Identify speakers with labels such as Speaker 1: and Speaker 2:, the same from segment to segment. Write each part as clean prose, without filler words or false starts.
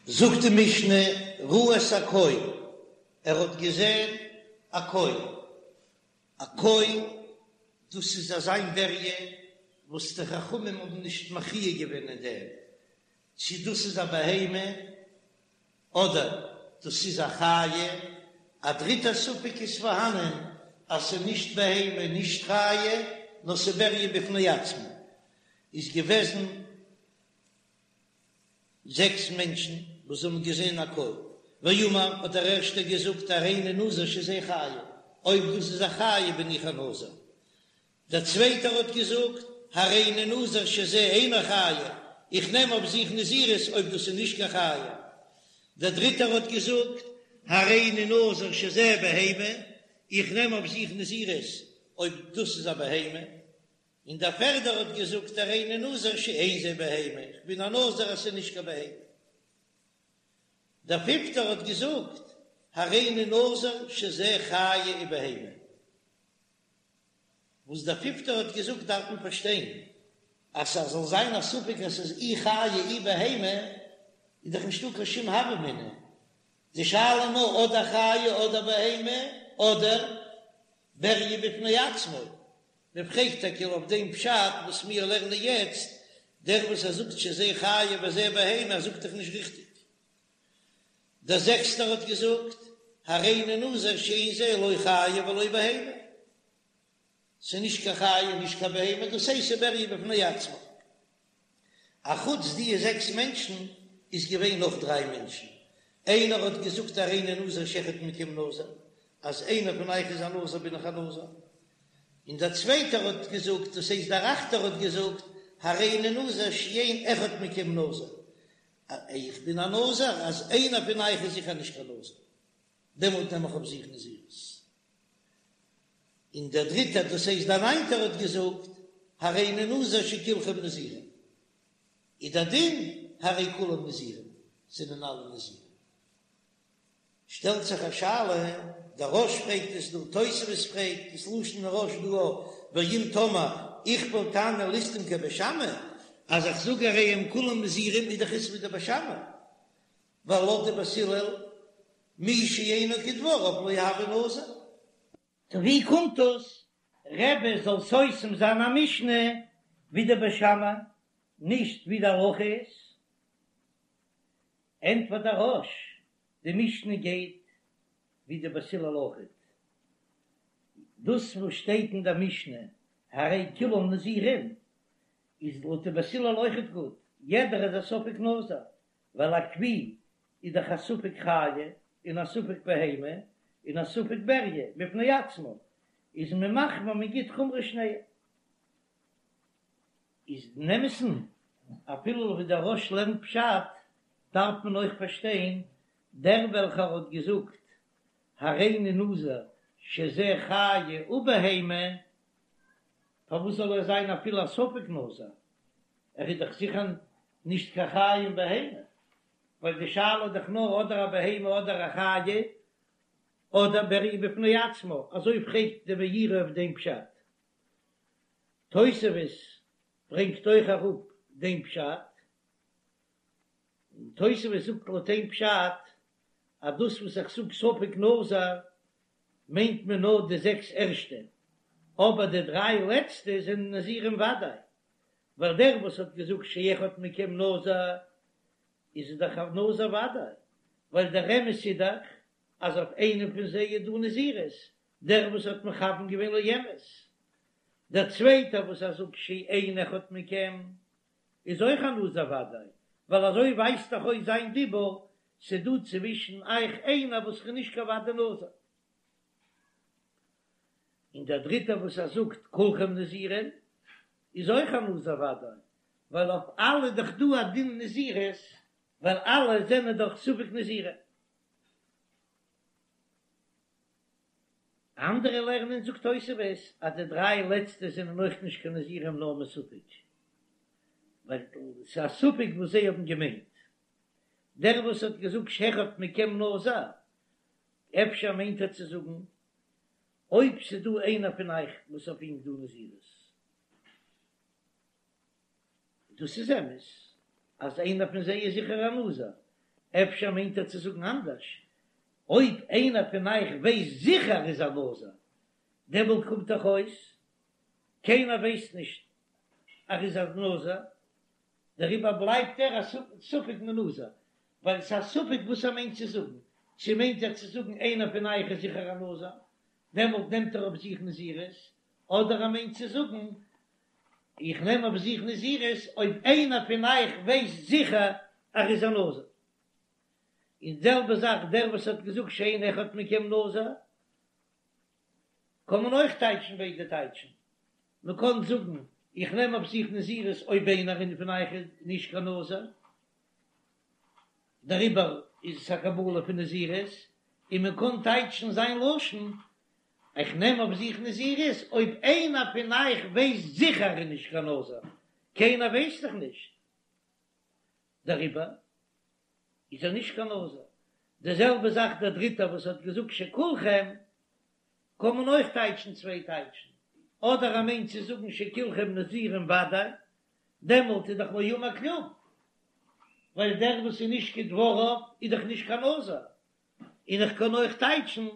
Speaker 1: זאגט די משנה, ראה את הכוי, ער האט געזען א כוי, א כוי דאס איז אזא בריה וואס די חכמים האבן נישט מכריע געווען אין דעם צו דאס איז א בהמה אדער דאס איז א חיה, א דריטע ספק איז פארהאנען אז ס'איז נישט בהמה נישט חיה נאר ס'איז בריה בפני עצמו, איז געוועזן זעקס מענטשן וואס האבן געזען א כוי, ואמר האט דער ערשטער געזאגט הריני נזיר שזה חיה, אויב דאס איז א חיה בין איך א נזיר. דער צווייטער האט געזאגט הריני נזיר שזה אינו חיה, איך נעם אויף זיך נזירות אויב דאס איז נישט קיין חיה. דער דריטער האט געזאגט הריני נזיר שזה בהמה, איך נעם אויף זיך נזירות אויב דאס איז א בהמה. און דער פערדער האט געזאגט הריני נזיר שאין זה בהמה, איך בין א נזיר אז ס'איז נישט קיין בהמה. דער פיפטער האט געזאגט הריני נזיר שזה חיה ובהמה. וואס דער פיפטער האט געזאגט דארף מען פארשטיין, אז ס'זאל זיין א ספק אז ס'איז אי חיה אי בהמה, איז דאך נישטא קיין שום הוה אמינא. די שאלה נאר אדער חיה אדער בהמה אדער בריה בפני עצמו. מען פרעגט טאקע אויף דעם פשט וואס מיר לערנען יעצט, דער וואס ער זאגט שזה חיה וזה בהמה זאגט דאך נישט ריכטיג. דער זעקסטער האט געזאגט, הריני נזיר שאין זה לא חיה ולא בהמה, ס'איז נישט קיין חיה און נישט קיין בהמה, דאס הייסט ס'איז בריה בפני עצמו. אחוץ די זעקס מענטשן איז געווען נאך דריי מענטשן, איינער האט געזאגט הריני נזיר שאחד מכם נזיר, אז איינער פון אייך איז א נזיר בין איך א נזיר, און דער צווייטער האט געזאגט, דאס הייסט דער אכטער האט געזאגט, הריני נזיר שאין אחד מכם נזיר, איך בין א נזיר אז איינער פון אייך איז זיכער נישט קיין נזיר, דעמאלט נעם איך אויף זיך נזירות. און דער דריטער, דאס הייסט דער ניינטער האט געזאגט, הריני נזיר שכולכם נזירים, איז דער דין הרי כולם נזירים, זענען אלע נזירים. שטעלט זיך א שאלה, דער רא"ש פרעגט עס דא, תוספות פרעגט דאס לשון הרא"ש דא, ואם תאמר איכפל תנא לסתום כבית שמאי, אז איך זאג הרי הם כולם נזירים איז דאך עס ווי די בית שמאי, ווייל לויט די בית הלל מי שאינו כדבריו לא הוי נזיר.
Speaker 2: טא ווי קומט דאס רבי זאל סותם זיין א משנה ווי די בית שמאי, נישט ווי די הלכה איז? ענטפערט דער רא"ש, די משנה גייט ווי די בית הלל אויכעט, דאס וואס שטייט אין דער משנה הרי כולם נזירים איז לויט די בית הלל אויכעט גוט, יעדער איז א ספק נזיר, ווייל א כוי איז דאך א ספק חיה און א ספק בהמה און א ספק בריה בפני עצמו, איז מען מחמיר מען גיט חומרא שניהם. איז אין אמת'ן אפילו ווי דער רא"ש לערנט פשט דארף מען אויך פארשטיין דער וועלכער האט געזאגט הריני נזיר שזה חיה ובהמה פארוואס זאל ער זיין אפילו א ספק נזיר ער איז דאך זיכער נישט קיין חיה און בהמה ווייל די שאלה איז דאך נאר אדער א בהמה אדער א חיה אדער בריה בפני עצמו אזוי פרעגט די מאירי אויף דעם פשט. תוספות ברענגט אויך אראפ דעם פשט, און תוספות זאגט לויט דעם פשט אז דאס וואס איך זאג ספק נזיר מיינט מען נאר די זעקס ערשטע, אבער די דריי לעצטע זענען נזירים ודאי, ווייל דער וואס האט געזאגט שאחד מכם נזיר איז דאך א נזיר ודאי, ווייל דער אמת איז דאך אז אויף איינעם פון זיי איז דא נזירות, דער וואס האט מכוון געווען לאמת, דער צווייטער וואס ער זאגט שאין אחד מכם איז אויך א נזיר ודאי, ווייל אזוי ווייזט דאך אויס זיין דיבור, ס'דא צווישן אייך איינער וואס איז נישט קיין ודאי נזיר. און דער דריטער וואס ער זאגט כולכם נזירים איז אויך א נזיר ודאי, ווייל אויף אלע איז דאך דא א דין נזירות, ווייל אלע זענען דאך ספק נזירים. אנדערע לערנען זאגט תוספות אז די דריי לעצטע זענען אויך נישט קיין נזירים נאר מספק, ווייל ס'איז א ספק וואס זיי האבן געמיינט. דער וואס האט געזאגט שאחד מכם נזיר, אפשר מיינט ער צו זאגן אויב ס'איז דא איינער פון אייך וואס אויף אים איז דא נזירות. דאס איז אמת אז איינער פון זיי איז זיכער א נזיר, אפשר מיינט ער צו זאגן אנדערש, אויב איינער פון אייך ווייסט זיכער ער איז א נזיר, דעמאלט קומט דאך אויס קיינער ווייסט נישט אז ער איז א נזיר, דעריבער בלייבט ער א ספק מנזיר, ווייל ס'איז א ספק וואס ער מיינט צו זאגן, צו מיינט ער צו זאגן איינער פון אייך איז זיכער א נזיר, דעמאלט נעמט ער אויף זיך נזירות, אדער ער מיינט צו זאגן איך נעם אויף זיך נזירות אויב איינער פון אייך ווייסט זיכער אז ער איז א נזיר. און די זעלבע זאך דער וואס האט געזאגט שאין אחד מכם נזיר, קען מען אויך טייטשן ביידע טייטשן, מען קען זאגן איך נעם אויף זיך נזירות אויב איינער פון אייך איז נישט קיין נזיר, דעריבער איז עס א קבלה פון נזירות, און מען קען טייטשן זיין לשון איך נעם אויף זיך נזירות אויב איינער פון אייך ווייסט זיכער ער איז נישט קיין נזיר, קיינער ווייסט דאך נישט, דעריבער איז ער נישט קיין נזיר. די זעלבע זאך דער דריטער וואס האט געזאגט שכולכם, קען מען אויך טייטשן צוויי טייטשן, אדער ער מיינט צו זאגן שכולכם נזירים ודאי, דעמאלט איז דאך לא אמר כלום, ווייל דער וואס איז נישט כדבריו איז דאך נישט קיין נזיר, און איך קען אויך טייטשן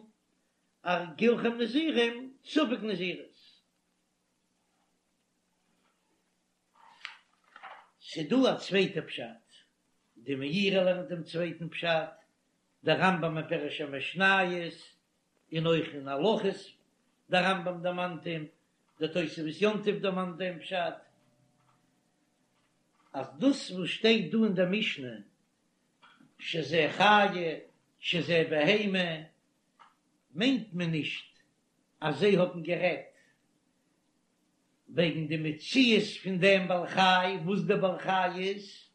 Speaker 2: אז כולכם נזירים ספק נזירות. ס'דא א צווייטע פשט, די מאירי לערנט דעם צווייטן פשט, דער רמב"ם אין פירוש המשניות, און אויך אין הלכות, דער רמב"ם דערמאנט אים, דער תוספות יום טוב דערמאנט דעם פשט, אז דאס וואס שטייט דא אין דער משנה, שזה חיה, שזה בהמה, מיינט מען נישט אז זיי האבן גערעדט וועגן די מציאות פון דעם בעל חי, וואס דער בעל חי איז,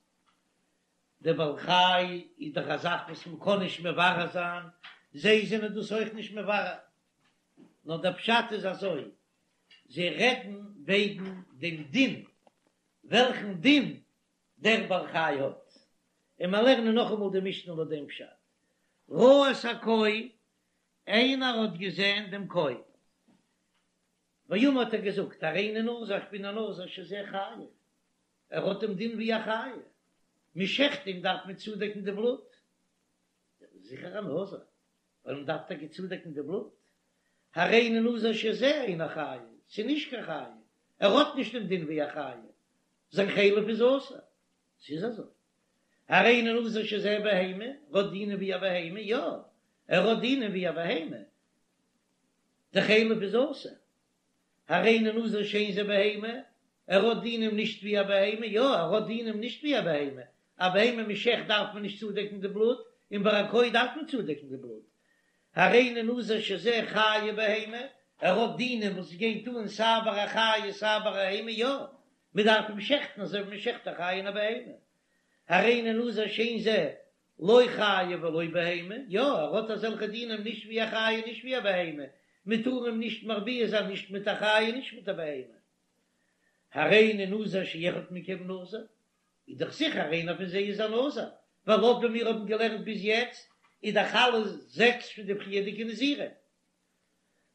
Speaker 2: דער בעל חי איז דאך א זאך וואס מען קען נישט מברר זיין, זיי זענען דאס אויך נישט מברר, נאר דער פשט איז אזוי, זיי רעדן וועגן דעם דין, וועלכן דין דער בעל חי האט, און מיר לערנען נאכאמאל די משנה לויט דעם פשט, ראה את הכוי, איינער האט געזען דעם כוי. ואמר האט ער געזאגט, הריני נזיר איך בין א נזיר שזה חיה, ער האט דעם דין ווי א חיה, מען שעכט אים דארף מען צודעקן די בלוט, זיכער א נזיר, ווייל מען דארף טאקע צודעקן די בלוט, הריני נזיר שזה אינו חיה, ס'איז נישט קיין חיה, ער האט נישט דעם דין ווי א חיה, זיין חלב איז אסור, ס'איז אזוי, הריני נזיר שזה בהמה, ער האט דינים ווי א בהמה, יא, ער האט דינים ווי א בהמה, די חלב איז אסור. הריני נזיר שאין זה בהמה, ער האט דינים נישט ווי א בהמה, יא ער האט דינים נישט ווי א בהמה, א בהמה מ'שעכט דארף מען נישט צודעקן די בלוט, און ביי א כוי דארף מען צודעקן די בלוט. הריני נזיר שזה חיה ובהמה, ער האט דינים וואס גייט אן סיי ביי א חיה סיי ביי א בהמה, יא מען דארף אים שעכטן אזוי ווי מען שעכט א חיה און א בהמה. הריני נזיר שאין זה לא חיה ולא בהמה, יא, ער האט אזעלכע דינים נישט ווי א חיה נישט ווי א בהמה, מען טאר אים נישט מרביע זיין נישט מיט א חיה נישט מיט א בהמה. הריני נזיר שאחד מכם נזיר, איז דאך זיכער איינער פון זיי איז א נזיר, ווייל לויט ווי מיר האבן געלערנט ביז יעצט איז דאך אלע זעקס פון די פריערדיגע נזירים.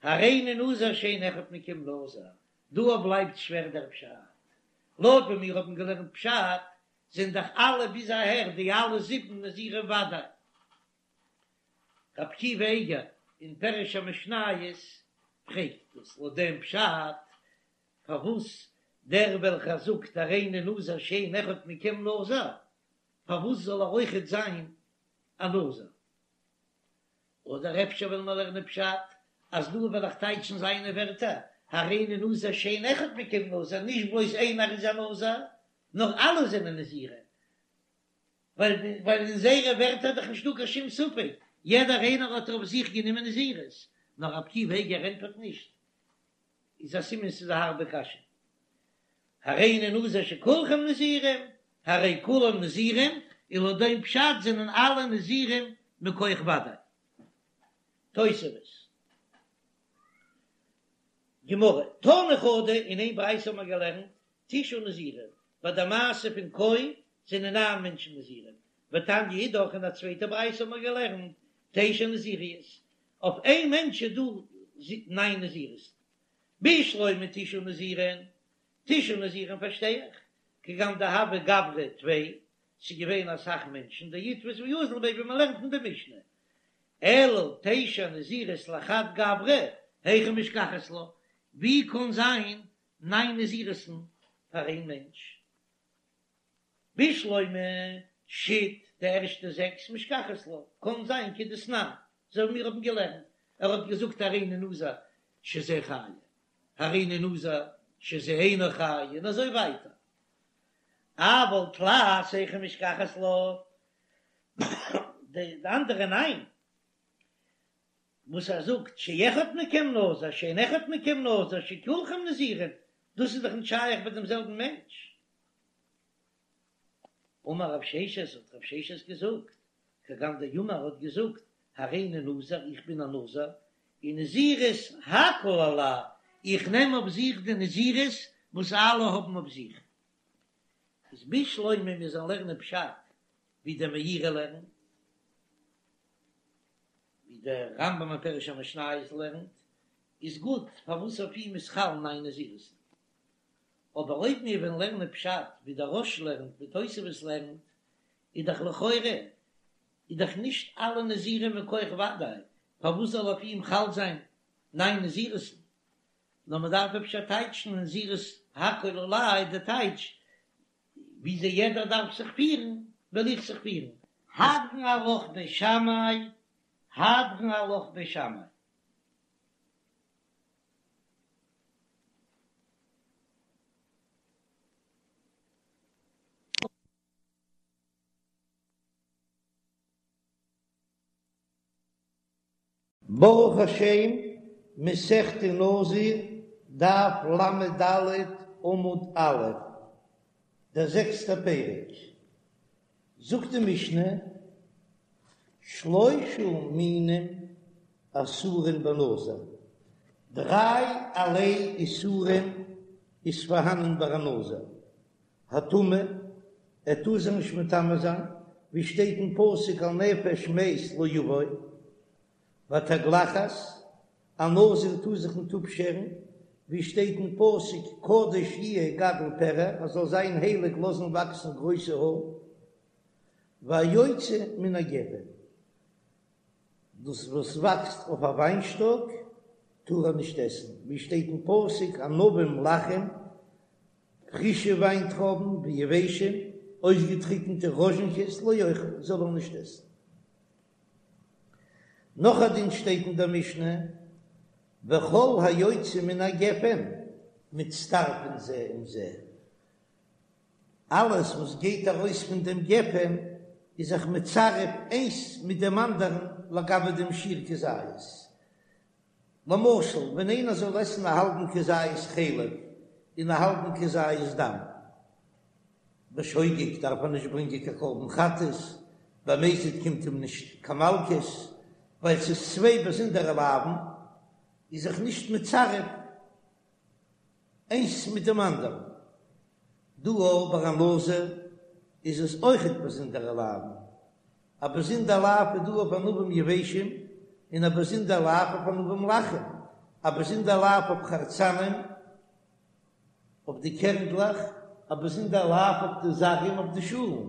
Speaker 2: הריני נזיר שאין אחד מכם נזיר, דא בלייבט שווער דער פשט, לויט ווי מיר האבן געלערנט פשט זענען דאך אלע ביז אהער די אלע זיבן נזירים ודאי. רבי עקיבא אייגער אין פירוש המשניות פרעגט דאס לויט דעם פשט, פארוואס דער וועלכער זאגט הריני נזיר שאין אחד מכם נזיר, פארוואס זאל ער אויכעט זיין א נזיר? אדער אפשר וועלן מיר לערנען פשט אז דא וועל איך טייטשן זיינע ווערטער, הריני נזיר שאין אחד מכם נזיר, נישט בלויז איינער איז א נזיר, נאר אלע זענען נזירים, ווייל ווייל אין זייערע ווערטער איז דאך נישטא קיין שום ספק, יעדער איינער האט אויף זיך גענומען נזירות, נאר רבי עקיבא אייגער ענטפערט נישט, איז א סימן ס'איז א הארבע קשיא. הריני נזיר שכולכם נזירים, הרי כולם נזירים, און לויט דעם פשט זענען אלע נזירים מכח ודאי. תוספות. גמרא, תנא חדא, אין איין ברייתא האבן מיר געלערנט, תשעה נזירים, ביי די מעשה פון כוי זענען ניין מענטשן נזירים, ותניא אידך אין א צווייטע ברייתא האבן מיר געלערנט, תשע נזיריות, אויף איין מענטש איז דא ניין נזירות. בשלמא תשעה נזירים, תשעה נזירים פארשטיי איך, כגון דהוו גברי טפי. ס'איז געווען אסאך מענטשן, דאיתפיס ואזיל ביה ווי מ'לערנט אין די משנה, אלא תשע נזירות לחד גברא, היכי משכחת לה, ווי קען זיין ניין נזירות'ן פאר איין מענטש? בשלמא שית די ערשטע זעקס משכחת לה, קאן זיין כדתנן, אזוי ווי מיר האבן געלערנט, ער האט געזאגט הריני נזיר שזה חיה, הריני נזיר שזה אינו חיה, און אזוי ווייטער. אבל תלת היכי משכחת לה, די אנדערע ניין, וואס ער זאגט שאחד מכם נזיר שאין אחד מכם נזיר שכולכם נזירים, דאס איז דאך נישט שייך ביי דעם זעלבן מענטש. אמר רב ששת, האט רב ששת געזאגט, כגון דאמר האט געזאגט, הריני נזיר, איך בין א נזיר, און נזירות הכל עלי, איך נעם אויף זיך די נזירות וואס אלע האבן אויף זיך. איז בשלמא מיר זאלן לערנען פשט ווי דער מאירי לערנט, ווי דער רמב"ם אין פירוש המשניות לערנט, איז גוט פארוואס אויף אים איז חל ניין נזירות'ן. אבער אויב מיר וועלן לערנען פשט ווי דער רא"ש לערנט ווי תוספות לערנט, איז דאך לכאורה איז דאך נישט אלע נזירים מכח ודאי, פארוואס זאל אויף אים חל זיין ניין נזירות'ן? נאר מען דארף אפשר טייטשן נזירות הכל עלי די טייטש וויאזוי יעדער דארף זיך פירן וועל איך זיך פירן. הדרן עלך בית שמאי, הדרן עלך בית שמאי.
Speaker 1: ברוך השם, מסכת נזיר, דף ל"ד עמוד א', דער זעקסטער פרק, זאגט די משנה, שלושה מינים אסורין בנזיר, דריי ערליי איסורים איז פארהאנען ביי א נזיר, הטומאה, ער טאר זיך נישט מטמא זיין, ווי שטייט אין פסוק אל נפש מת לא יבוא, והתגלחת, א נזיר טאר זיך ניט אפשערן, ווי שטייט אין פסוק קדוש יהיה גדל פרע, ער זאל זיין הייליג לאזן וואקסן גרויסע האר, והיוצא מן הגפן, דאס וואס וואקסט אויף א וויינשטאק טאר ער נישט עסן, ווי שטייט אין פסוק ענבים לחים, פרישע וויינטרויבן ויבשים, אויסגעטריקנטע ראזשינקעס לא יאכל, זאל ער נישט עסן. נאך א דין שטייט אין דער משנה, וכל היוצא מן הגפן מצטרפין זה עם זה, אלעס וואס גייט ארויס פון דעם גפן איז זיך מצרף איינס מיט דעם אנדערן לגבי דעם שיעור כזית. למשל, ווען איינער זאל עסן א האלבן כזית חלב און א האלבן כזית דם, בשוגג דארף ער נישט ברענגען קיין קרבן חטאת, במזיד קומט אים נישט קיין מלקות, ווייל ס'איז צוויי באזונדערע לאווין, איז זיך נישט מצרף איינס מיט דעם אנדערן. דא אבער ביי א נזיר איז עס אויכעט באזונדערע לאווין, א באזונדער לאו איז דא אויף ענבים יבשים, און א באזונדער לאו אויף ענבים לחים, א באזונדער לאו אויף חרצנים, אויף די קערנדלעך, א באזונדער לאו אויף די זגים אויף די שאלן.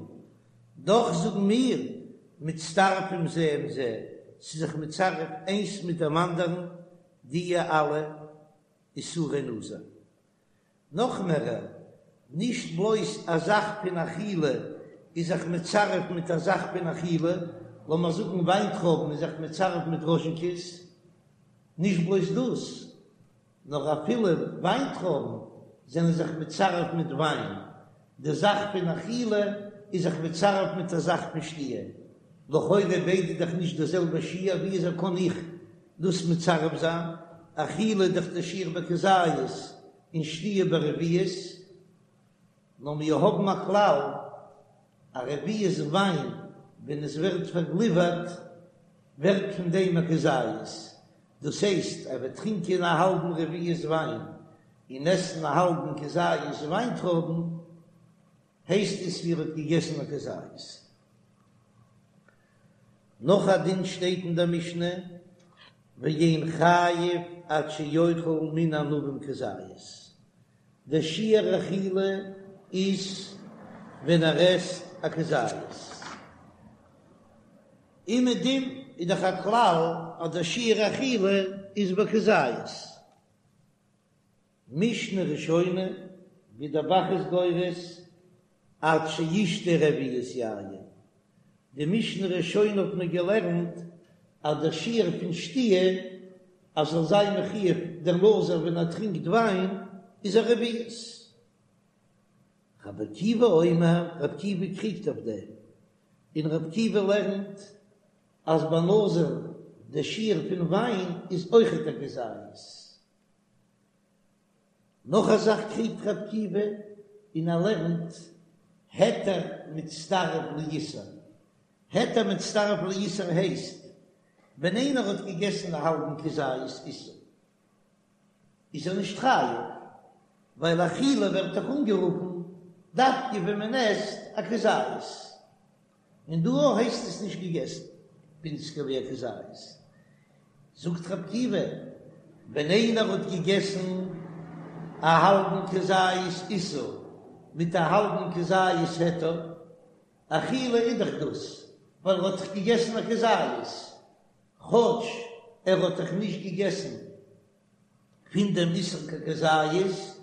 Speaker 1: דאך זאגן מיר, מצטרפים זה עם זה, ס'איז זיך מצרף איינס מיט דעם אנדערן דיע אלע איסורי נזיר. נאך מערער, נישט בלויז א זאך פון אכילה איז זיך מצרף מיט א זאך פון אכילה, לאמיר זאגן וויינטרויבן איז זיך מצרף מיט ראזשינקעס, נישט בלויז דאס, נאר אפילו וויינטרויבן זענען זיך מצרף מיט וויין, די זאך פון אכילה איז זיך מצרף מיט א זאך פון שתיה, לכאורה ביידע דאך נישט די זעלבע שיעור, ווי אזוי קען איך דאס מצרף זיין, אכילה איז דאך די שיעור בכזית און שתיה ברביעית, נאר מיר האבן א כלל, א רביעית וויין ווען עס ווערט פארגליווערט ווערט פון דעם א כזית, דאס הייסט ער וועט טרינקען א האלבן רביעית וויין און עסן א האלבן כזית וויינטרויבן, הייסט עס ווי ער האט געגעסן א כזית. נאך א דין שטייט אין דער משנה, ואין חייב עד שיאכל מן הענבים כזית, דער שיעור אכילה איז ווען ער עסט. א כזית. אומעדום איז דאך א כלל אז דער שיעור אכילה איז בכזית. משנה ראשונה, ווי דער ב"ח איז גורס, עד שישתה רביעית יין. די משנה ראשונה האט מען געלערנט אז דער שיעור פון שתיה אז זאל זיין מחויב דער נזיר ווען ער טרינקט וויין איז א רביעית. רבי עקיבא אומר, רבי עקיבא קריגט אויף דעם, און רבי עקיבא לערנט אז ביי נזיר דער שיעור פון וויין איז אויכעט א כזית. נאך א זאך קריגט רבי עקיבא און ער לערנט היתר מצטרף לאיסור. היתר מצטרף לאיסור הייסט ווען איינער האט געגעסן א האלבן כזית איסור איז ער נישט חייב, ווייל אכילה ווערט דאך אנגערופן דווקא ווען מען עסט א כזית. און דא הייסט עס נישט געגעסן ווינציגער ווי א כזית. זאגט רבי עקיבא, ווען איינער האט געגעסן א האלבן כזית איסור מיט א האלבן כזית היתר, אכילה איז דאך דאס ווייל ער האט דאך געגעסן א כזית, כאטש ער האט דאך נישט געגעסן פון דעם איסור קיין כזית,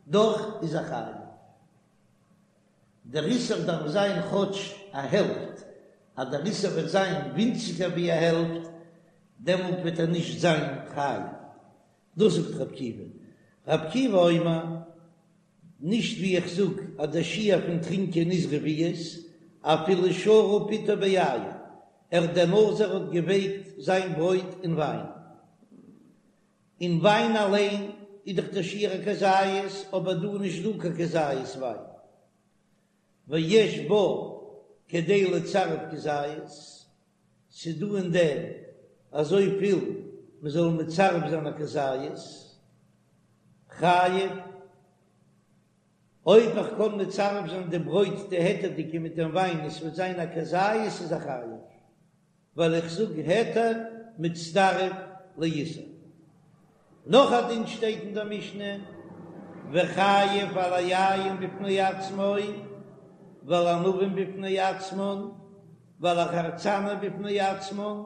Speaker 1: דאך איז ער חייב. דער איסור דארף זיין כאטש א העלפט, אז דער איסור וועט זיין ווינציגער ווי א העלפט, דעמאלט וועט ער נישט זיין חייב. דאס זאגט רבי עקיבא. רבי עקיבא אומר, נישט ווי איך זאג אז דער שיעור פון טרינקען איז רביעית, אפילו שרה פתו ביין, ער דער נזיר האט געווייקט זיין ברויט אין וויין. אין וויין אליין איז דאך דער שיעור א כזית, אבער דא איז נישט דא קיין כזית וויין. ויש בו כדי לצרף כזית, ס'איז דא אין דעם אזויפיל מ'זאל מצרף זיין א כזית, חייב. אויב איך קען מצרף זיין די ברויט די היתר'דיגע מיט דעם וויין און ס'וועט זיין א כזית איז ער חייב. ווייל איך זאג היתר מצטרף לאיסור. נאך א דין שטייט אין דער משנה, וחייב על היין בפני עצמו ועל הענבים בפני עצמן ועל החרצנים בפני עצמן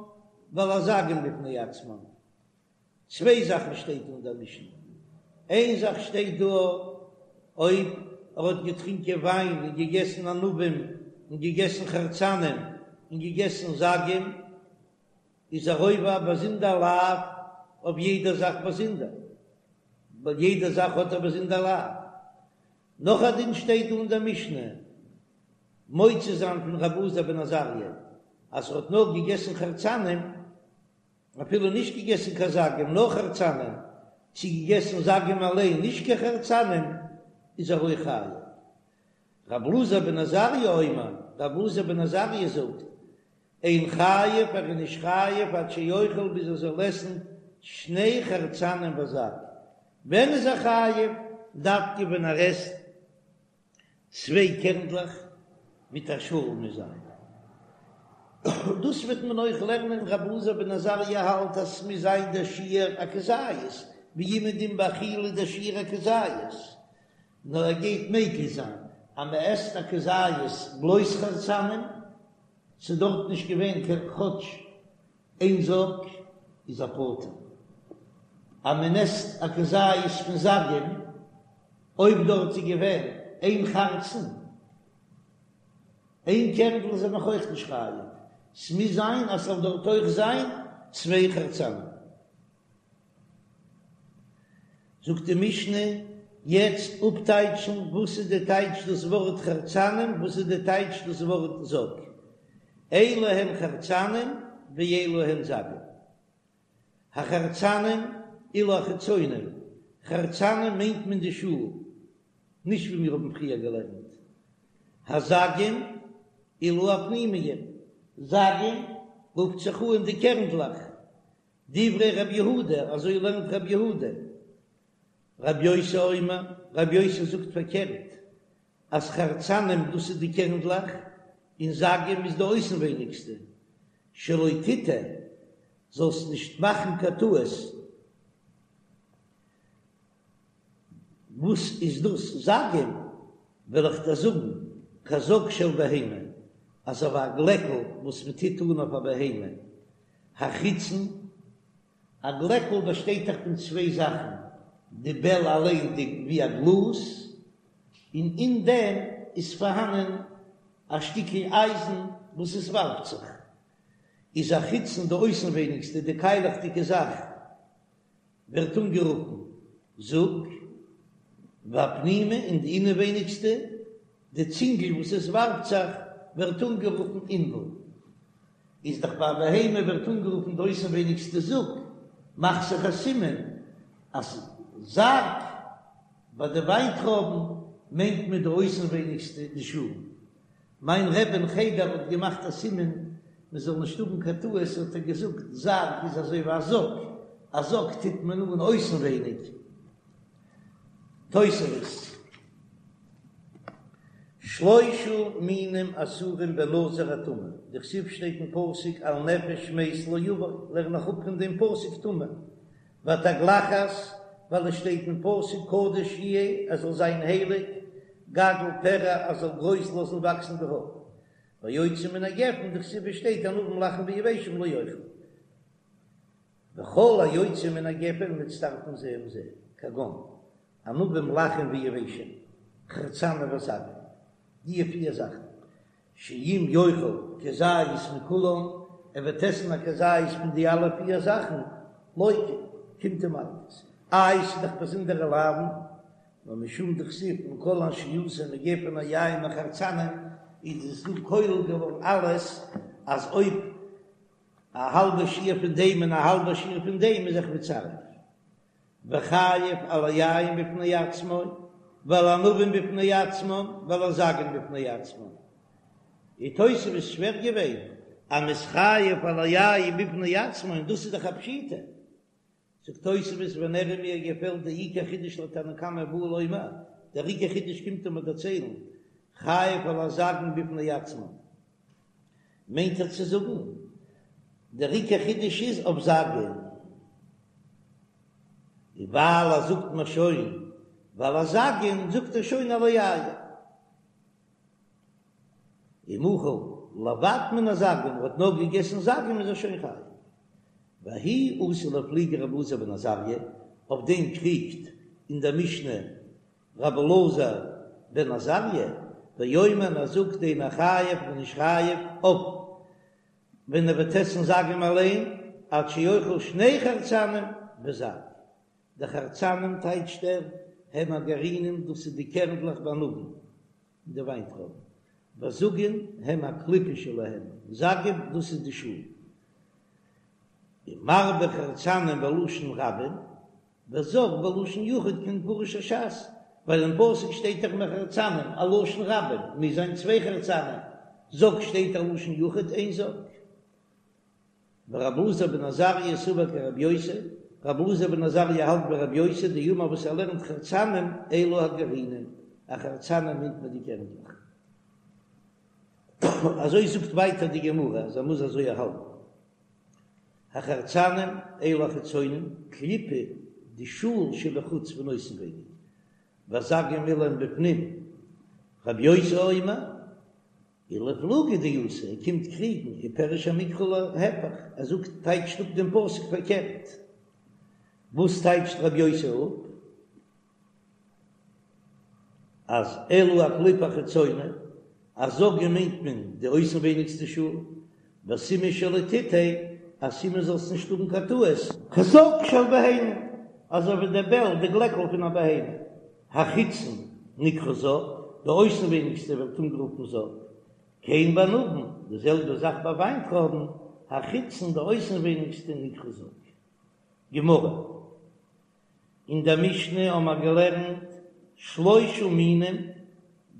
Speaker 1: ועל הזגים בפני עצמן. צוויי זאכן שטייט אין דער משנה, איין זאך שטייט דא אויב ער האט געטרינקען וויין און געגעסן ענבים און געגעסן חרצנים און געגעסן זגים איז ער עובר א באזונדער לאו אויף יעדע זאך באזונדער, ווייל יעדע זאך האט א באזונדער לאו. נאך א דין שטייט דא אין דער משנה מוציא זיין פון רבי אלעזר בן עזריה אז ער האט נאר געגעסן חרצנים אפילו נישט געגעסן קיין זגים נאר חרצנים, צי געגעסן זגים אליין נישט קיין חרצנים, איז ער אויך חייב. רב אלעזר בן עזריה אומר, רב אלעזר בן עזריה זאגט, אין חייב ער איז נישט חייב עד שיאכל ביז ער זאל עסן שני חרצנים וזג, ווען איז ער חייב? דווקא ווען ער עסט צוויי קערנדלעך מיט א שאל מוז זיין. דאס וועט מען אויך לערנען רבי אלעזר בן עזריה האלט אז ס'מוז זיין דער שיעור א כזית, ווי אומעדום ביי אכילה דער שיעור א כזית, נאר ער גייט מקיל זיין אז מ'עסט א כזית בלויז חרצנים, ס'איז דארט נישט געווען קיין כאטש איין זג איז ער פטור אז מען עסט א כזית פון זגים, אויב דארט איז געווען איין חרצן, איין קערנדל איז ער נאך אויך נישט חייב, ס'מוז זיין אז ס'זאל דארט אויך זיין צוויי חרצנים. זאגט די משנה, יעצט אפטייטשן וואס איז די טייטש דאס ווארט חרצנים, וואס איז די טייטש דאס ווארט זג, אלו הן חרצנים ואלו הן זגים. החרצנים אלו החיצונים, חרצנים מיינט מען די שאל, נישט ווי מיר האבן פריער געלערנט, הזגים אלו הפנימיים, זגים רופט זיך אן די קערנדלעך, דברי רב יהודה, אזוי לערנט רב יהודה. רב יוסי אומר, רב יוסי זאגט פארקערט, אז חרצנים דאס איז די קערנדלעך, און זגים איז די אויסנווייניגסטע, שלא תטעה, זאלסט נישט מאכן קיין טעות. וואס איז דאס זגים? וועל איך דיר זאגן, כזג של בהמה. אזוי ווי א גלעקל וואס מען טוט אן אויף א בהמה, החיצון, א גלעקל באשטייט דאך פון צוויי זאכן, די בעל אליין די ווי א גלאז, און אין דעם איז פארהאנען א שטיקל אייזן וואס עס ווארפט זיך, איז החיצון די אויסנווייניגסטע די קיילעכדיגע זאך ווערט אנגערופן זוג, והפנימי און די אינעווייניגסטע די צינגל וואס עס ווארפט זיך ווערט אנגערופן ענבל. איז דאך ביי א בהמה ווערט אנגערופן די אויסנווייניגסטע זוג, מאך זיך א סימן אז זג ביי די וויינטרויבן מיינט מען די אויסנווייניגסטע די שאל. מיין רבי אין חדר האט געמאכט א סימן מען זאל נישט האבן קיין טעות האט ער געזאגט זג איז אזוי ווי א זאק, א זאק טוט מען אן אויסנווייניג. תוספות. שלושה מינים אסורים בנזיר הטמא, דכתיב שטייט אין פסוק על נפש מת לא יבוא, לערן איך אפ פון דעם פסוק טמא, והתגלחת, ווייל עס שטייט אין פסוק קדוש יהיה, ער זאל זיין הייליג, גדל פרע, ער זאל גרויס לאזן וואקסן די האר, והיוצא מן הגפן, דכתיב שטייט ענבים לחים ויבשים לא יאכל. וכל היוצא מן הגפן מצטרפין זה עם זה, כגון, ענבים לחים ויבשים, חרצנים וזגים, די פיר זאכן, שאם יאכל כזית מכולן, ער וועט עסן א כזית פון די אלע פיר זאכן, לוקה, קומט אים מלקות. איי ס'איז דאך באזונדערע לאווין, נאר משום דכתיב מכל אשר יעשה מגפן היין מחרצנים, איז עס דא כולל געווארן אלעס, אז אויב א האלבע שיעור פון דעם און א האלבע שיעור פון דעם איז זיך מצרף. וחייב על היין בפני עצמו, ועל הענבים בפני עצמן, ועל הזגין בפני עצמן. איז תוספות שווער געווען אז מ'איז חייב על היין בפני עצמו און דאס איז דאך א פשיטא. זאגט תוספות ונראה מיר געפעלט די עיקר חידוש לתנא קמא בא לומר, דער עיקר חידוש קומט אים דערציילן, חייב על הזגין בפני עצמן. מיינט ער צו זאגן, דער עיקר חידוש איז אויף זגין, און ווייל ער זאגט מיר שוין ועל הזגין זאגט ער שוין על היין. אם אכל לבד מן הזגין, ער האט נאר געגעסן זגין איז ער שוין חייב. וההיא אתא לאיפלוגי רבי אלעזר בן עזריה, אויף דעם קריגט אין דער משנה רבי אלעזר בן עזריה, ואומר ער זאגט אינו חייב מ'איז נישט חייב אויף ווען ער וועט עסן זגים אליין עד שיאכל שני חרצנים וזג, די חרצנים טייטשט ער הם הגרעינים דאס איז די קערנדלעך בענבים אין די וויינטרויבן, וזגין הם הקליפה שלהם, זגים דאס איז די שאל, ומרבה חרצנים בלשון רבים, וזג בלשון יחיד כמפרש הש"ס, ווייל אין פסוק שטייט דאך מחרצנים א לשון רבים, מוז זיין צוויי חרצנים, זג שטייט א לשון יחיד איין זג. ורבי אלעזר בן עזריה סבר כרבי יוסי, רבי אלעזר בן עזריה האלט ווי רבי יוסי דאמר וואס ער לערנט חרצנים אלו הגרעינים, א חרצנים מיינט מען די קערנדלעך. אזוי זאגט ווייטער די גמרא אז ער מוז אזוי האלטן. החרצנים אלו החיצונים, קליפה די שאל שבחוץ פון אויסנווייניג, והזגים אלו הם בפנים, רבי יוסי אומר, ולאיפלוגי דאתא, ער קומט קריגן, ופירש המקרא להיפך, ער זאגט טייטשט אפ דעם פסוק פארקערט, וואס טייטשט רבי יוסי אפ? אז אלו הקליפה החיצונה, אז זגים מיינט מען די אויסנווייניגסטע שאל, וסימן שלא תטעה, א סימן זאלסט נישט האבן קיין טעות. כזג של בהמה, אזוי ווי די בעל, די גלעקל פון א בהמה. החיצון נקרא זג, די אויסנווייניגסטע ווערט אנגערופן זג. כן בענבים, די זעלבע זאך ביי וויינטרויבן, החיצון די אויסנווייניגסטע נקרא זג. גמרא. אין דער משנה האבן מיר געלערנט שלושה מינים,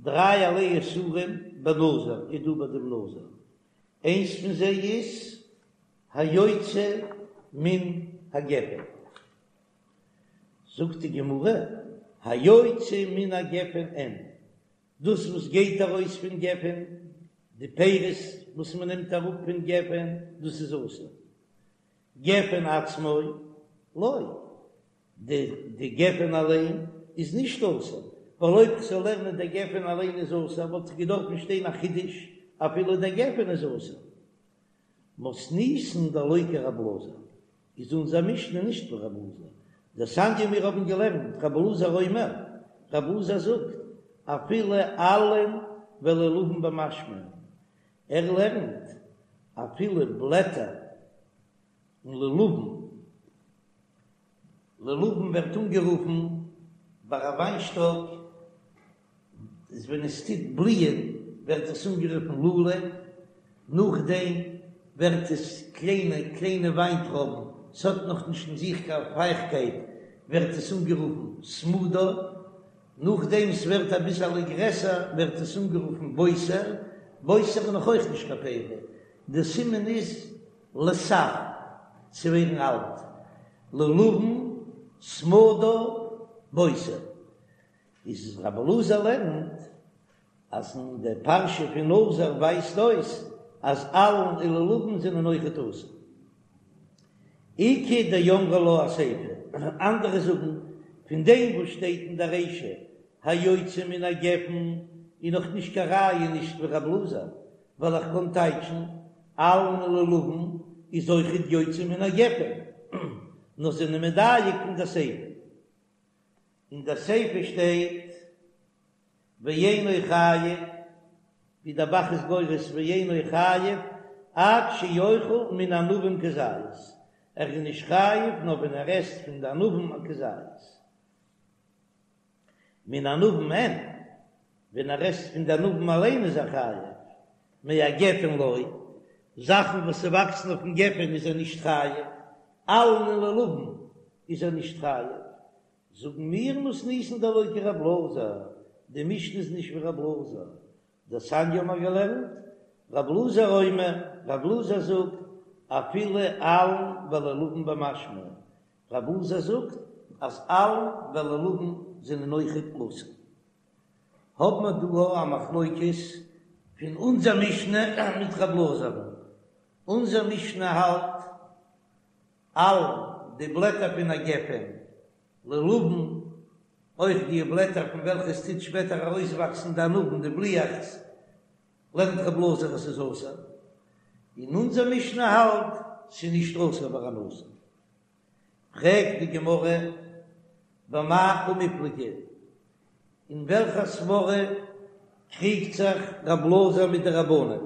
Speaker 1: דרייערליי איסורים בנזיר איז דא ביי דעם נזיר, איינס פון זיי איז היוצא מן הגפן, זאגט די גמרא, היוצא מן הגפן אין, דאס וואס גייט ארויס פון גפן, די פירות וואס מען נעמט אראפ פון גפן, דאס איז אסור, גפן עצמו לא, די די גפן אליין איז נישט אסור, ווייל אויב כ'זאל לערנען די גפן אליין איז אסור וואלט איך געדארפן שטיין א חידוש. אפילו דער גפן איז אסור. מתניתין דלא כרבי אלעזר, איז אונזער משנה נישט ווי רבי אלעזר, דתניא מיר האבן געלערנט רבי אלעזר אומר, רבי אלעזר זאגט אפילו עלין ולולבין במשמע, ער לערנט אפילו בלעטער און לולבין, לולבין ווערט אנגערופן ביי א וויינשטאק איז ווען עס טוט בליען ווערט עס אנגערופן לולב, נאכדעם ווערט עס קליינע קליינע וויינטרויבן, ס'האט נאך נישט אין זיך קיין פייכקייט ווערט עס אנגערופן סמדר, נאכדעם ס'ווערט אביסעלע גרעסער ווערט עס אנגערופן בוסר, בוסר איז נאך אויך נישט קיין פרי, די סימן איז לסב, צו ווערן אלט, לולבין, סמדר, בוסר. איז רבי אלעזר לערנט אז אין די פרשה פון נזיר ווייזט אויס אז עלין און לולבין זענען אויכעט אסור. איכא דאמרי לה אסיפא, אנדערע זאגן פון דעם וואס שטייט אין די רישא היוצא מן הגפן איז נאך נישט קיין ראיה נישט ווי רבי אלעזר, ווייל איך קען טייטשן עלין און לולבין איז אויכעט יוצא מן הגפן, נאר זענען מדייק פון די סיפא. אין די סיפא שטייט ואינו חייב, ווי דער ב"ח איז גורס ואינו חייב עד שיאכל מן הענבים כזית, ער איז נישט חייב נאר ווען ער עסט פון די ענבים א כזית, מן הענבים אין, ווען ער עסט פון די ענבים אליין איז ער חייב, מהגפן לא, זאכן וואס ס'וואקסן אויפן גפן איז ער נישט חייב, עלין און לולבין איז ער נישט חייב, זאגן מיר מתניתין דלא כרבי אלעזר, די משנה איז נישט ווי רבי אלעזר, דתניא האבן מיר געלערנט, רבי אלעזר אומר, רבי אלעזר זאגט, אפילו עלין ולולבין במשמע, רבי אלעזר זאגט אז עלין ולולבין זענען אויכעט אסור. האבן מיר דא א מחלוקת פון אונזער משנה מיט רבי אלעזר'ן, אונזער משנה האלט עלין די בלעטער פון א גפן, לולבין, אויך די בלעטער פון וועלכע עס טוט שפעטער ארויסוואקסן די ענבים די בליעכץ, לערנט רבי אלעזר אז ס'איז אסור, און אונזער משנה האלט ס'איז נישט אסור ביי א נזיר. פרעגט די גמרא, במאי קמיפלגי, אין וועלכע סברא קריגט זיך רב אלעזר מיט די רבנן?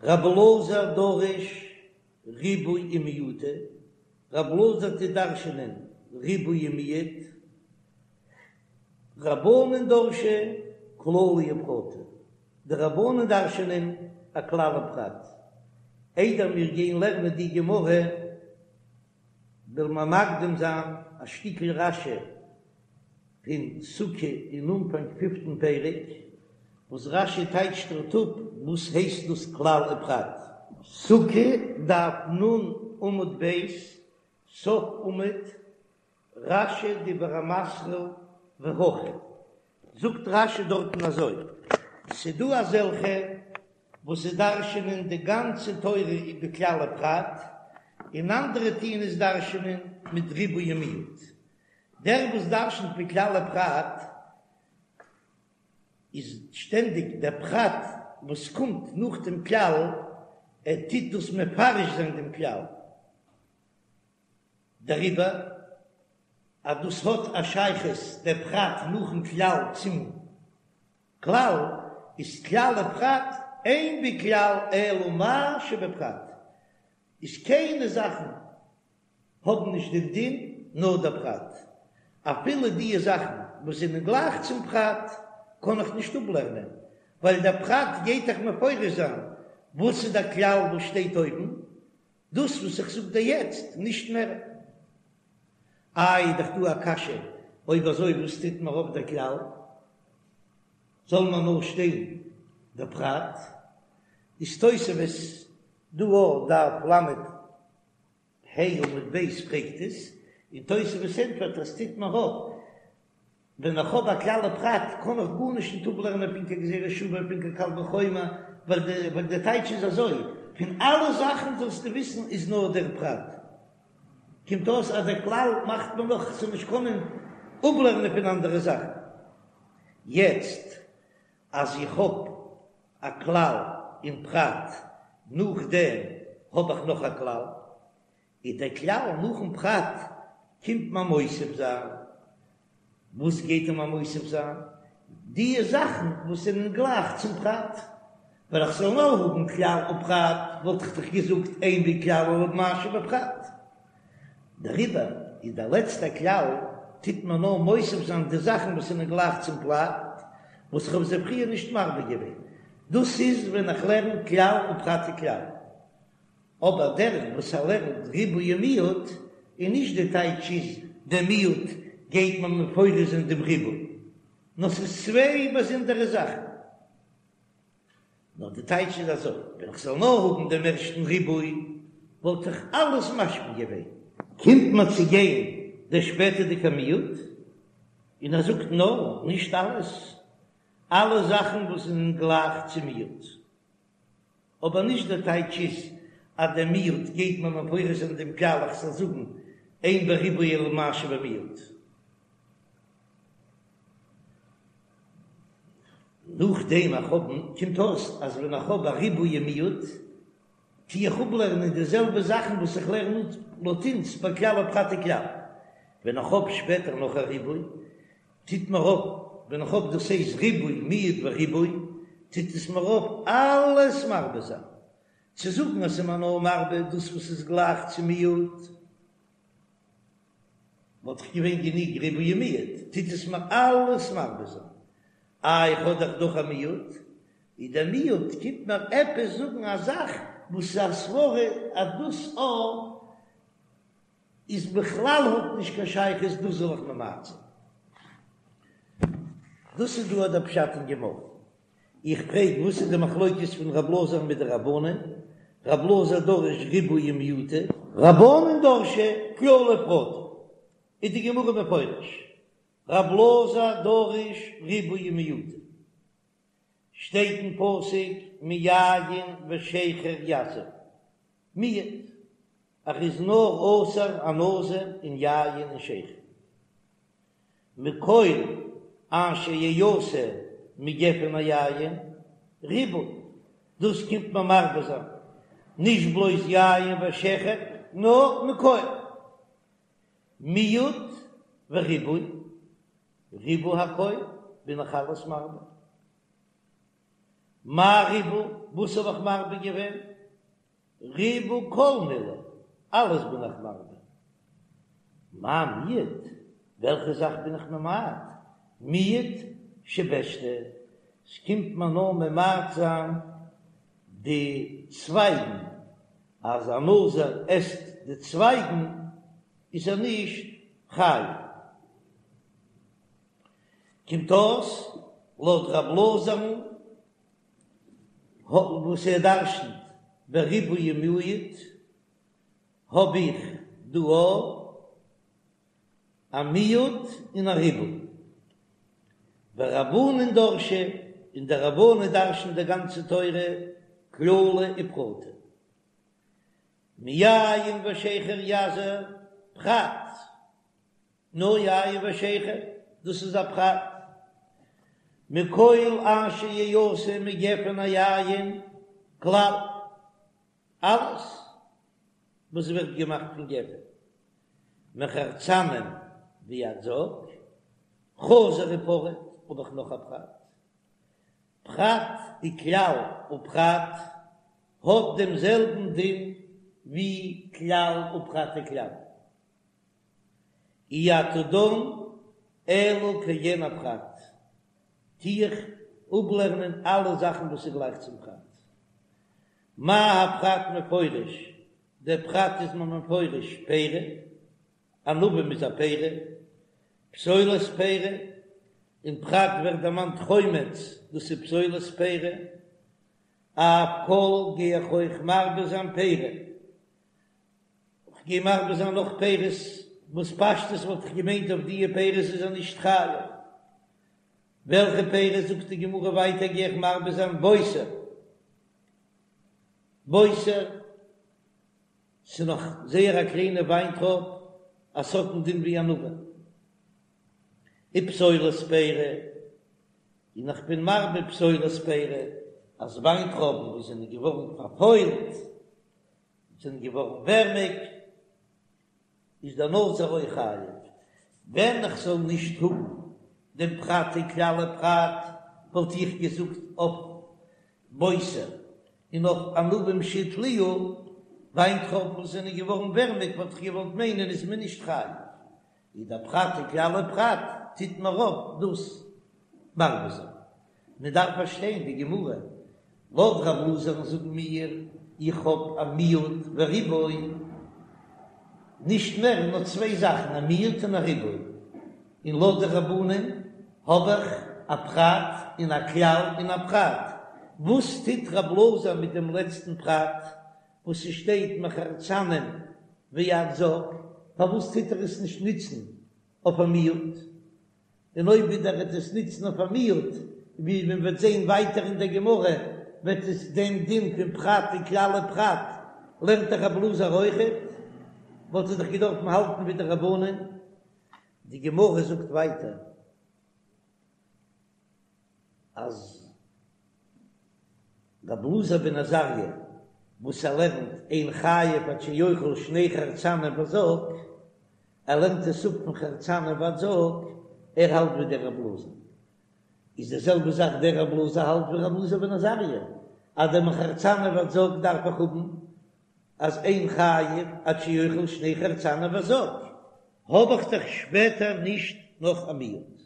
Speaker 1: רב אלעזר דריש ריבויי ומיעוטא, רב אלעזר טוט דרש'ענען ריבוי און מיעוט, רבנן דרשי כללי ופרטי, די רבנן דרש'ענען א כלל ופרט. איידער מיר גייען לערנען די גמרא, וועלן מיר מקדים זיין א שטיקל רש"י פון סוכה אין אנפאנג פיפטן פרק, וואס רש"י טייטשט דארט אפ וואס הייסט דאס כלל ופרט. סוכה, דף נ עמוד ב', סוף עמוד, רש"י דיבור המתחיל והכא, זאגט רש"י דארטן אזוי, ס'דא אזעלכע וואס זיי דרש'ענען די גאנצע תורה בכלל ופרט, און אנדערע טוען עס דרש'ענען מיט ריבוי ומיעוט. דער וואס דרש'נט בכלל ופרט איז שטענדיג דער פרט וואס קומט נאך דעם כלל, ער טוט דאס מפרש זיין דעם כלל. דעריבער אז דאס האט א שייכות דער פרט נאכן כלל צום כלל, איז כלל ופרט אין בכלל אלא מה שבפרט, איז קיינע זאכן האבן נישט דעם דין נאר דער פרט, אפילו די זאכן וואס זענען גלייך צום פרט קען איך נישט אפלערנען, ווייל דער פרט גייט דאך מפרש זיין וואס איז דער כלל וואס שטייט אויבן, דאס וואס איך זאג דיר יעצט, נישט מער. איי, איז דאך דא א קשיא, אויב אזוי וואס טוט מיר אויף דער כלל? זאל מיר נאר שטיין דער פרט? איז תוספות דא אויף דף ל"ה עמוד ב' פרעגט עס, און תוספות ענטפערט אז טוט מיר אויף ווען איך האב א כלל ופרט קען איך גארנישט נישט אפלערנען פון קיין גזירה שוה פון קיין קל וחומר, ווייל די ווייל די טייטש איז אזוי, פון אלע זאכן זאלסטו וויסן איז נאר דער פרט. קומט אויס אז דער כלל מאכט מען נאך צו נישט קענען אפלערנען פון אנדערע זאכן. יעצט אז איך האב. א כלל און פרט, נאכדעם האב איך נאך א כלל, איז דער כלל נאכן פרט קומט מען מוסיף זיין, וואס גייט ער מיר מוסיף זיין? די זאכן וואס זענען גלייך צום פרט, ווען איך זאל נאר האבן כלל ופרט וואלט איך דאך געזאגט אין בכלל אלא במה שבפרט, דעריבער איז דער לעצטער כלל טוט מען נאר מוסיף זיין די זאכן וואס זענען גלייך צום פרט, וואס איך האב זיי פריער נישט מרבה געווען, דאס איז ווען איך לערן כלל ופרט וכלל. אבער דער וואס ער לערנט ריבוי ומיעוט, איז נישט די טייטש איז דער מיעוט גייט מען מפרש זיין דעם ריבוי, נאר ס'איז צוויי באזונדערע זאכן. נאר די טייטש איז אזוי, ווען איך זאל נאר האבן דעם ערשטן ריבוי וואלט איך אלעס משמע געווען. קומט מען צו גיין דער שפעטערדיגער מיעוט, און ער זאגט נאר, נישט אלעס, אלע זאכן וואס זענען גלייך צום מיעוט. אבער נישט דער טייטש איז אז דער מיעוט גייט מען מפרש זיין דעם כלל איך זאל זאגן אין בריבוי אלא מה שבמיעוט. נאכדעם איך האב קומט אויס אז ווען איך האב א ריבוי און מיעוט טו איך אפלערנען די זעלבע זאכן וואס איך לערן אפ לויט אונז ביי כלל ופרט וכלל. ווען איך האב שפעטער נאך א ריבוי טוט מיר אויף, ווען איך האב דאס הייסט ריבוי מיעוט וריבוי, טוט עס מיר אויף אלעס מרבה זיין. צו זאגן אז ס'איז מיר נאר מרבה דאס וואס איז גלייך צו מיעוט, וואלט דאך געווען גענוג ריבוי ומיעוט, טוט עס מיר אלעס מרבה זיין. איי איך האב דאך דאך א מיעוט, איז דער מיעוט קומט מיר עפעס זאגן א זאך וואס איז א סברא אז דאס א. איז בכלל האט נישט קיין שייכות דאס זאל איך ממעט זיין. דאס איז דא דער פשט אין גמרא. איך פרעג וואס איז די מחלוקת פון רב אלעזר מיט די רבנן? רב אלעזר דריש ריבויי ומיעוטי. רבנן דרשי כללי ופרטי. איז די גמרא מפרש רב אלעזר דריש ריבויי ומיעוטי. שטייט אין פסוק מיין ושכר יזיר. מיעוט, ער איז נאר אסור א נזיר אין יין און שכר. מכל אשר יעשה מגפן היין, ריבוי, דאס קומט מען מרבה זיין, נישט בלויז יין ושכר, נאר מכל. מיעוט וריבוי, ריבוי הכל, בין איך אלעס מרבה. מאי ריבה, וואס האב איך מרבה געווען? ריבה כל מילי, אלעס בין איך מרבה. מאי מיעט, וועלכע זאך בין איך ממעט? מיעוט שבשתא, ס'קומט מיר נאר ממעט זיין די צווייגן, אז א נזיר עסט די צווייגן איז ער נישט חייב. קומט אויס לויט רב אלעזר'ן וואס ער דרשנ'ט בריבוי ומיעוט, האב איך דא א מיעוט און א ריבוי. ורבנן דרשי, און די רבנן דרש'נען די גאנצע תורה כללי ופרטי. מיין ושכר יזיר פרט. נאר יין ושכר, דאס איז א פרט. מכל אשר יעשה מגפן היין, כלל, אלעס וואס ווערט געמאכט פון גפן, מחרצנים ועד זג, חזר ופרט, האב איך נאך א פרט. פרט וכלל ופרט האט דעם זעלבן דין ווי כלל ופרט וכלל. אי אתה דן אלא כעין הפרט, טו איך אפלערנען אלע זאכן וואס איז גלייך צום פרט. מה הפרט מפורש, דער פרט איז מען מפורש פרי, ענבים איז א פרי, פסולת פרי, אין פרט ווערט דערמאנט חומץ, דאס איז פסולת פרי, אף כל גיי איך אויך מרבה זיין פרי. כ'גיי מרבה זיין נאך פירות, וואס פשטות וואלט איך געמיינט אויף דיע פירות איז ער נישט חייב. וועלכע פירות זאגט די גמרא ווייטער גיי איך מרבה זיין בוסר, בוסר, ס'איז נאך זייער א קליינע וויינטרויב, אז ס'האט א דין ווי ענבים. ופסולת פרי, און איך בין מרבה פסולת פרי. אז וויינטרויבן וואס זענען געווארן פארפוילט, זענען געווארן ווערמיג, איז דער נזיר אויך חייב. ווען איך זאל נישט האבן דעם פרט וכלל ופרט, וואלט איך געזאגט אויף בוסר און אויף ענבים שהתליעו, וויינטרויבן וואס זענען געווארן ווערמיג וואלט איך געוואלט מיינען איז מען נישט חייב. איז דער פרט וכלל ופרט טוט מיר אויף דאס מרבה זיין. מען דארף פארשטיין די גמרא, לויט רב אלעזר'ן זאגן מיר, איך האב א מיעוט וריבוי, נישט מער נאר צוויי זאכן א מיעוט און א ריבוי, און לויט די רבנן האב איך א פרט און א כלל און א פרט, וואס טוט רב אלעזר מיט דעם לעצטן פרט וואס ס'שטייט מחרצנים ועד זג, פארוואס טוט ער עס נישט נוצן אויף א מיעוט? און אויב ווידער ער וועט עס נוצן אויף א מיעוט, ווי מען וועט זען ווייטער אין דער גמרא, וועט עס דעם דין פון פרט וכלל ופרט לערנט דאך רב אלעזר אויכעט, וואלט ער דאך געדארפן האלטן ווי די רבנן. די גמרא זאגט ווייטער אז רב אלעזר בן עזריה וואס ער לערנט אין חייב עד שיאכל שני חרצנים וזג, ער לערנט עס אפ פון חרצנים ועד זג, ער האלט ווי דער רב אלעזר, איז די זעלבע זאך דער רב אלעזר האלט ווי רב אלעזר בן עזריה, אז דער מחרצנים ועד זג דארף איך האבן אז אין חייב עד שיאכל שני חרצנים וזג, האב איך דאך שפעטער נישט נאך א מיעוט.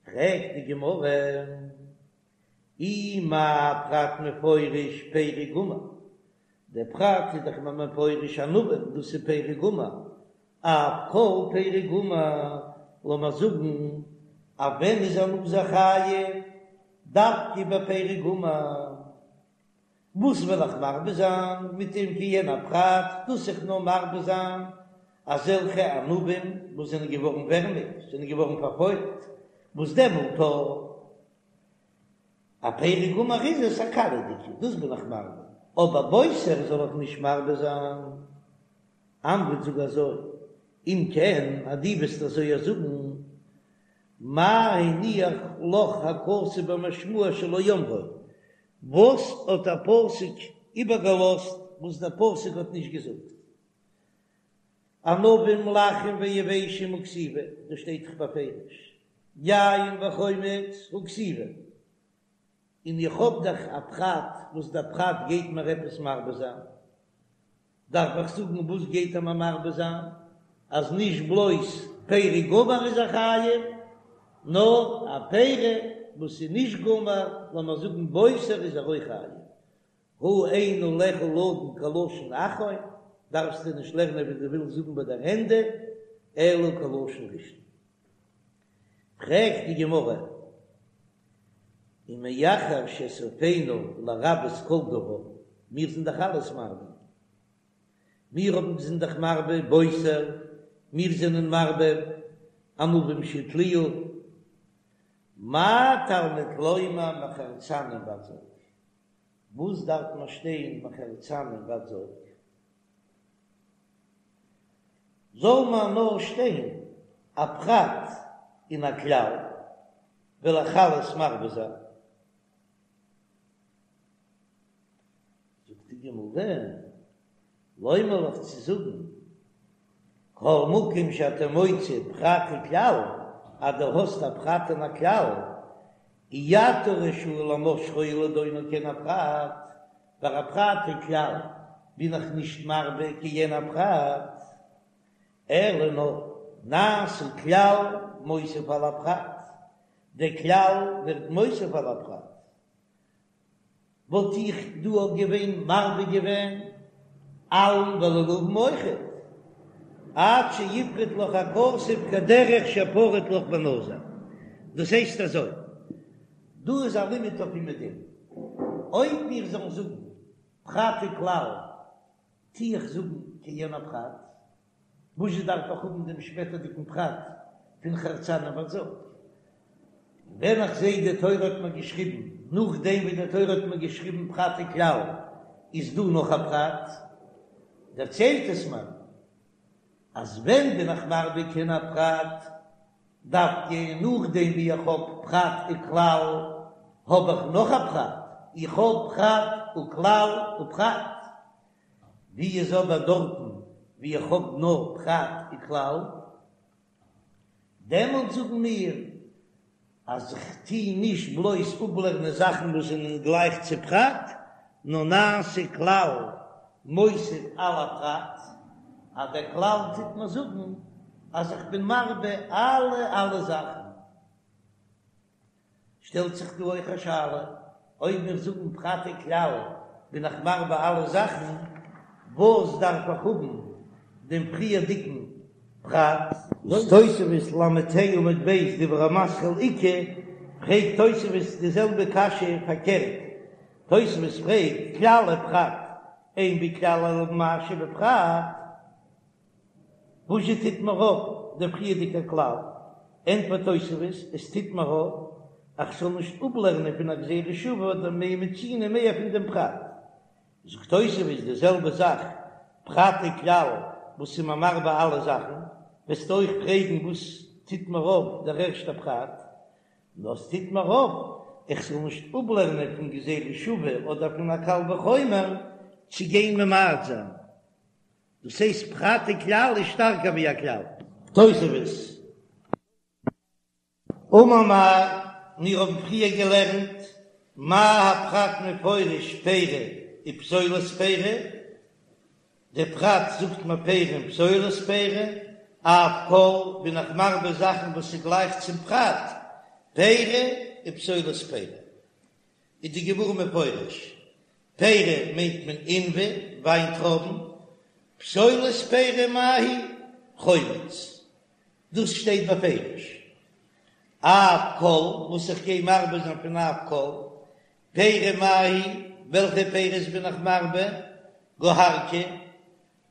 Speaker 1: פרעגט די גמרא, אי מה פרט מפורש פרי גמור, דער פרט איז דאך מפורש ענבים, דאס איז פרי גמור, אף כל פרי גמור, לאמיר זאגן אז ווען איז א נזיר חייב דווקא ביי פרי גמור, וואס וועל איך מרבה זיין מיט דעם כעין הפרט, דאס איך נאר מרבה זיין אזעלכע ענבים וואס זענען געווארן ווערמיג, זענען געווארן פארפוילט, וואס דעמאלט א פרי גמור איז עס א קאליעדיגע, דאס בין איך מרבה, אבער בוסר זאל איך נישט מרבה זיין. אמרת זאג אזוי, אם כן אז דו וועסט אזוי זאגן, מה הניח לך הכתוב במשמע שלא אמרו, וואס האט דער פסוק איבערגעלאזט וואס דער פסוק האט נישט געזאגט? ענבים לחים ויבשים הא כתיבי, דאס שטייט דאך בפירוש, יין וחומץ הא כתיבי, און איך האב דאך א פרט וואס דער פרט גייט מיר עפעס מרבה זיין, דארף איך זאגן וואס גייט ער מיר מרבה זיין? אז נישט בלויז פרי גמור איז ער חייב, נאר א פרי וואס איז נישט גמור, לאמיר זאגן בוסר איז ער אויך חייב. הא אין עליך לדון כלשון אחרון, דארפסטו נישט לערנען ווי דו ווילסט זאגן ביי דער ענדע, אלא כלשון ראשון. פרעגט די גמרא, ומאחר שסופינו לרבות כל דבר, מיר זענען דאך אלעס מרבה, מיר האבן זענען דאך מרבה בוסר, מיר זענען מרבה ענבים שהתליעו, מה תלמוד לומר מחרצנים ועד זג, וואס דארף מען שטיין מחרצנים ועד זג? זאל מען נאר שטיין א פרט און א כלל, וועל איך אלעס מרבה זיין. זאגט די גמרא, לומר לך צו זאגן, כל מקום שאתה מוצא פרט וכלל, אז דו האסט א פרט און א כלל, אי אתה רשאי למשכו ולדונו כעין הפרט, ביי א פרט וכלל בין איך נישט מרבה כעין הפרט, אלא נאר נעשה כלל מוסיף על הפרט, דער כלל ווערט מוסיף על הפרט, וואלט איך דא אויך געווען מרבה געווען עלים ולולבים אויכעט, עד שיפרוט לך הכתוב כדרך שפרט לך בנזיר, דאס הייסט אזוי, דא איז א לימוד אויף אומעדום, אויב מיר זאלן זאגן פרט וכלל, טו איך זאגן כעין הפרט, וואזשע דארף איך האבן דעם שפעטערדיגן פרט פון חרצנים ועד זג? ווען איך זע די תורה האט מיר געשריבן, נאכדעם ווי די תורה האט מיר געשריבן פרט וכלל, איז דא נאך א פרט, דערציילט עס מיר אז ווען בין איך מרבה כעין הפרט, דווקא נאכדעם ווי איך האב פרט וכלל. האב איך נאך א פרט, איך האב פרט וכלל ופרט. ווי איז אבער דארטן ווי איך האב נאר פרט וכלל? דעמאלט זאגן מיר אז איך טו נישט בלויז אפלערנען זאכן וואס זענען גלייך צו פרט, נאר נעשה כלל מוסיף על הפרט, אז דער כלל טוט מיר זאגן אז איך בין מרבה אלע אלע זאכן. שטעלט זיך דא אויך א שאלה, אויב מיר זאגן פרט וכלל בין איך מרבה אלע זאכן, וואס דארף איך האבן דעם פריערדיגן פרט? וואס תוספות ל"ה עמוד ב' דיבור המתחיל איכא, פרעגט תוספות די זעלבע קשיא פארקערט, תוספות פרעגט כלל ופרט, אין בכלל אלא מה שבפרט, וואזשע טוט מיר אויף דער פריערדיגער כלל? ענטפערט תוספות, עס טוט מיר אויף אז כ'זאל נישט אפלערנען פון א גזירה שוה אדער מה מצינו מער פון דעם פרט. זאגט תוספות די זעלבע זאך, פרט וכלל וואס איז מיר מרבה אלע זאכן, וועסטו אויך פרעגן וואס טוט מיר אויף דער ערשטער פרט? נאר עס טוט מיר אויף איך זאל נישט אפלערנען פון גזירה שוה אדער פון א קל וחומר צו גיין ממעט זיין. דאס הייסט פרט וכלל איז שטארקער ווי א כלל. תוספות. אמר מר, מיר האבן פריער געלערנט מה הפרט מפורש פירי ופסולת פירי, דער פרט זאגט מיר פירי און פסולת פירי, אף כל בין איך מרבה זאכן וואס איז גלייך צום פרט, פירי ופסולת פירי. איז די גמרא מפרש, פירי מיינט מען עינבי, וויינטרויבן, פסולת פירי מאי היא, חומץ, דאס שטייט בפירוש. אף כל, וואס איך גיי מרבה זיין פון אף כל, פירי מאי היא, וועלכע פירות בין איך מרבה, גוהרקי,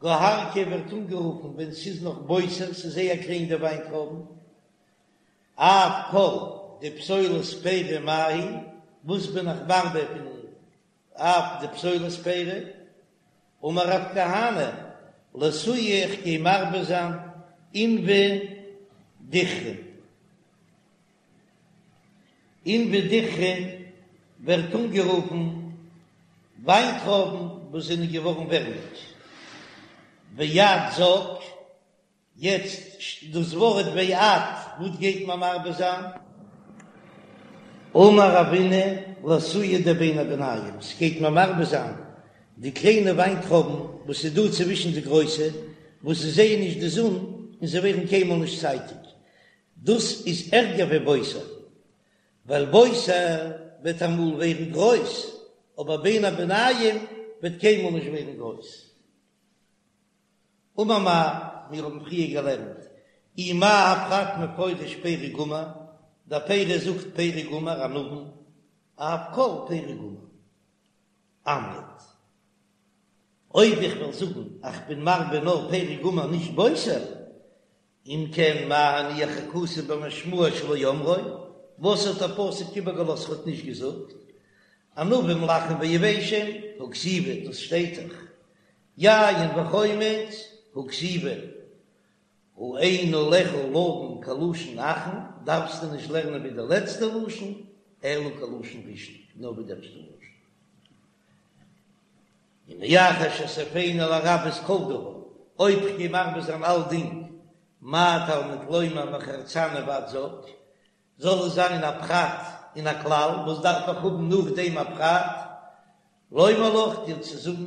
Speaker 1: גוהרקי ווערט אנגערופן ווען ס'איז נאך בוסר, ס'איז זייער קליין די וויינטרויבן, אף כל דפסולת פירי מאי היא, וואס בין איך מרבה פון אף דפסולת פירי? אמר רב כהנא, לאתויי איך גיי מרבה זיין עינבי דיכרין. עינבי דיכרין ווערט אנגערופן וויינטרויבן וואס זענען געווארן ווערמיג. ועד זג. יעצט דאס ווארט ועד, וואס גייט מען מרבה זיין? אמר רבינא לאתויי דבין הביניים, ס'גייט מען מרבה זיין די קליינע וויינטרויבן וואס איז דא צווישן די גרויסע, וואס זיי זעען נישט די זון און זיי ווערן קיינמאל נישט צייטיג, דאס איז ערגער ווי בוסר, ווייל בוסר וועט אמאל ווערן גרויס, אבער בין הביניים וועט קיינמאל נישט ווערן גרויס. אמר מר, מיר האבן פריער געלערנט אי מה הפרט מפורש פרי גמור, דער פירי זאגט פרי גמור ענבים, אף כל פרי גמור. אמרת, אויב איך וועל זאגן אז כ'בין מרבה נאר פרי גמור נישט בוסר, אם כן מה הניח הכתוב במשמעו שלא אמרו, וואס האט דער פסוק איבערגעלאזט ער האט נישט געזאגט, ענבים לחים ויבשים, הא כתיבי, דאס שטייט דאך, יין וחומץ, הא כתיבי, הא אין עליך לדון כלשון אחרון, דארפסטו נישט לערנען ווי די לעצטע לשון, אלא כלשון ראשון, נאר ווי די ערשטע לשון. ומאחר שסופינו לרבות כל דבר, אויב כ'גיי מרבה זיין אלדינג, מה תלמוד לומר מחרצנים ועד זג, זאל עס זיין א פרט און א כלל, וואס דארף איך האבן נאכדעם א פרט? לומר לך, דיר צו זאגן,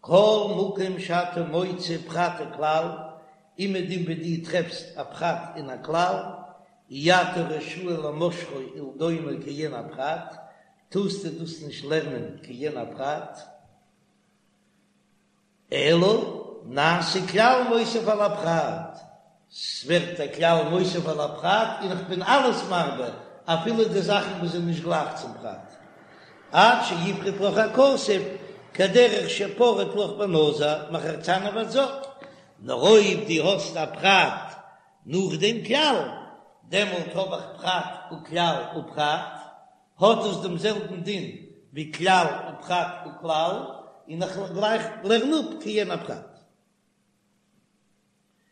Speaker 1: כל מקום שאתה מוצא פרט וכלל, אומעדום וואו דו טרעפסט א פרט און א כלל, אי אתה רשאי למשכו ולדונו כעין הפרט, טארסטו דאס נישט לערנען כעין הפרט, אלא נעשה כלל מוסיף על הפרט, ס'ווערט א כלל מוסיף על הפרט און איך בין אלעס מרבה אפילו די זאכן וואס זענען נישט גלייך צום פרט, עד שיפרוט לך הכתוב כדרך שפרט לך בנזיר מחרצנים ועד זג, נאר אויב דו האסט א פרט נאך דעם כלל, דעמאלט האב איך פרט וכלל ופרט, האט עס דעם זעלבן דין ווי כלל ופרט וכלל, און איך גלייך לערן אפ כעין הפרט.